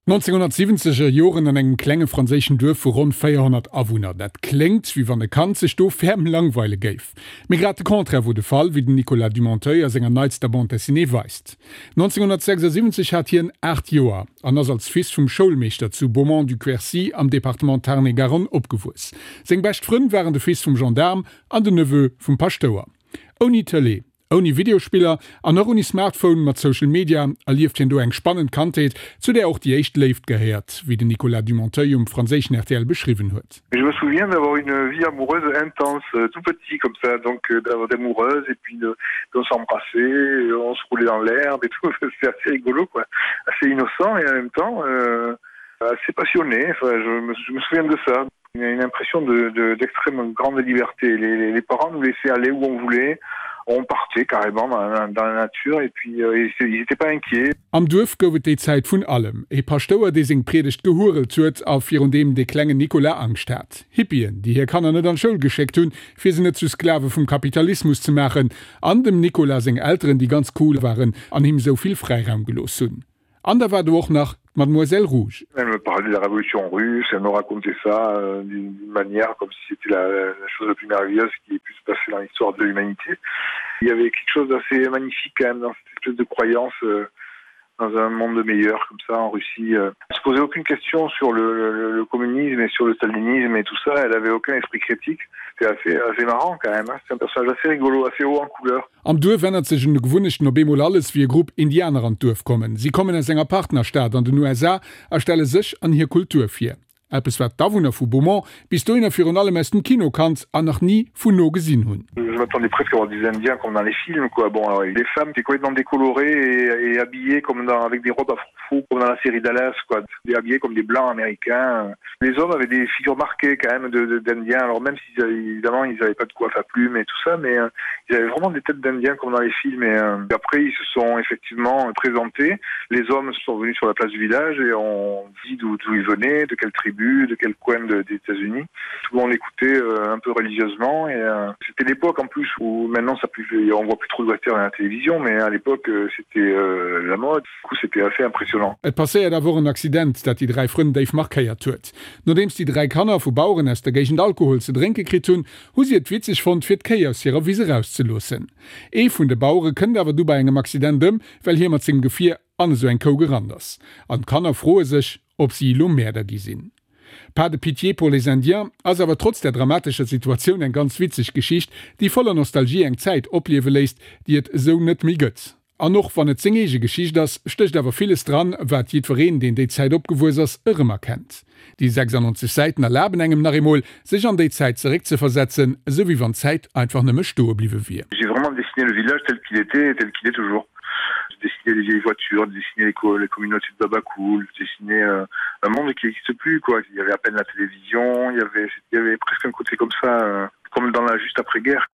1970 er Joren an engem klenge franséischen Duerf vu ronn 400 Awunner. Dat kléngt, wéi wann e Kand sech do ferm langweile géif. Mee grad de Contraire wor de Fall, wéi den Nicolas Dumontheuil a senger neitster Bande dessinée weist. 1976 hat hien 8 Joer an ass als Fils vum Schoulmeeschter zu Beaumont-du-Quercy am Departement Tarn-et-Garonne opgewuess. Seng bescht Frënn waren de Fils vum Gendaarm an den Neveu vum Paschtouer. Ouni Tëlee, Ouni Videospiller an och ouni Smartphone mat Social Media erlieft hien do eng spannend Kandheet, zu där och déi éischt Léift gehéiert, wéi den Nicolas Dumontheuil um franséischen rtl beschriwwen huet. Je me souviens d'avoir une vie amoureuse intense tout petit comme ça donc d'avoir d'amoureuses et puis de on s'embrassait on se roulait dans l'herbe et tout c'était assez rigolo quoi assez innocent et en même temps euh, assez passionné enfin je me, je me souviens de ça une impression de d'extrême grande liberté les, les, les parents nous laissaient aller où on voulait on partait carrément dans, dans la nature et puis euh, ils n'étaient pas inquiets. Am Duerf gouf et déi Zäit vun allem, e Paschtouer, dee seng Priedegt gehuerelt huet a virun deem de klengen Nicolas Angscht hat, Hippien, déi hir Kanner net an d'Schoul geschéckt hunn, fir se net zu Sklave vum Kapitalismus ze maachen, an dem Nicolas seng Elteren, déi ganz cool waren an him sou vill Fräiraum gelooss hunn. An da war do och nach d'Mademoiselle Rouge. Elle me parlait de la révolution russe, elle me racontait ça euh, d'une manière comme si c'était la, la chose la plus merveilleuse qui ait pu se passer dans l'histoire de l'humanité. Il y avait quelque chose d'assez magnifique quand même dans cette espèce de croyance euh, dans un monde meilleur comme ça en Russie. Euh. Elle se posait aucune question sur le, le, le communisme et sur le stalinisme et tout ça, elle avait aucun esprit critique. C'était assez, assez marrant quand même, c'est un personnage assez rigolo, assez haut en couleur. Am Duerf ännert sech un de Gewunnechten op eemol alles, wéi e Grupp Indianer an d'Duerf kommen. Si kommen aus enger Partnerstad an den USA a stelle sech an hir Kultur vir. Eppes wat d'Awunner vu Beaumont bis dohinner virun allem aus dem Kino kannt an nach ni vun no gesinn hunn. Je m'attendais presque à voir des Indiens comme dans les films quoi. Bon alors les femmes étaient complètement décolorées et, et habillées comme dans, avec des robes à froufrou comme dans la série Dallas quoi, et habillées comme des blancs américains. Les hommes avaient des figures marquées quand même de, de, d'Indiens, alors même si évidemment ils n'avaient pas de coiffe à plumes et tout ça, mais euh, ils avaient vraiment des têtes d'Indiens comme dans les films. Et, euh, et après ils se sont effectivement présentés. Les hommes sont venus sur la place du village et ont dit d'où ils venaient, de quelle tribu, de quel coin de, des États-Unis. Tout le monde écoutait euh, un peu religieusement et euh, c'était l'époque en plus où maintenant ça plus on voit plus trop de western à la télévision, mais à l'époque euh, c'était euh, la mode. Du coup c'était assez impressionnant. Et passéiert awer och en Accident, dat déi 3 Frënn déif markéiert huet. Nodeems déi 3 Kanner vu Baueren aus der Géigend Alkohol ze drénke kritt hunn, hu si et witzeg fonnt, fir d'Kéi aus hirer Wiss erauszeloossen. Ee vun de Bauere kënnt awer du bei engem Accident ëm, well hie mat sengem Gefier an esou eng Kou gerannt ass. An d'Kanner froe sech, ob si elo Mäerder gi sinn. Pas de pitié pour les Indiens ass awer trotz der dramatescher Situatioun eng ganz witzeg Geschicht, déi voller Nostalgie eng Zäit opliewe léisst, déi et esou net méi gëtt. An och wann et seng eege Geschicht ass, stécht awer villes dran, wat jiddwereen, deen déi Zäit opgewuess ass, erëmerkennt. Déi 96 Säiten erlaben engem nach eemol, sech an déi Zäit zeréckzeversetzen, esou wéi wann d'Zäit einfach nëmme stoe bliwwe wier. J'ai vraiment dessiné le village tel qu'il était et tel qu'il est toujours. J'ai dessiné les vieilles voitures, dessiné les, co les communautés de Babacool, dessiné euh, un monde qui n'existe plus quoi. Il y avait à peine la télévision, il y avait, il y avait presque un côté comme ça, euh, comme dans la juste après-guerre.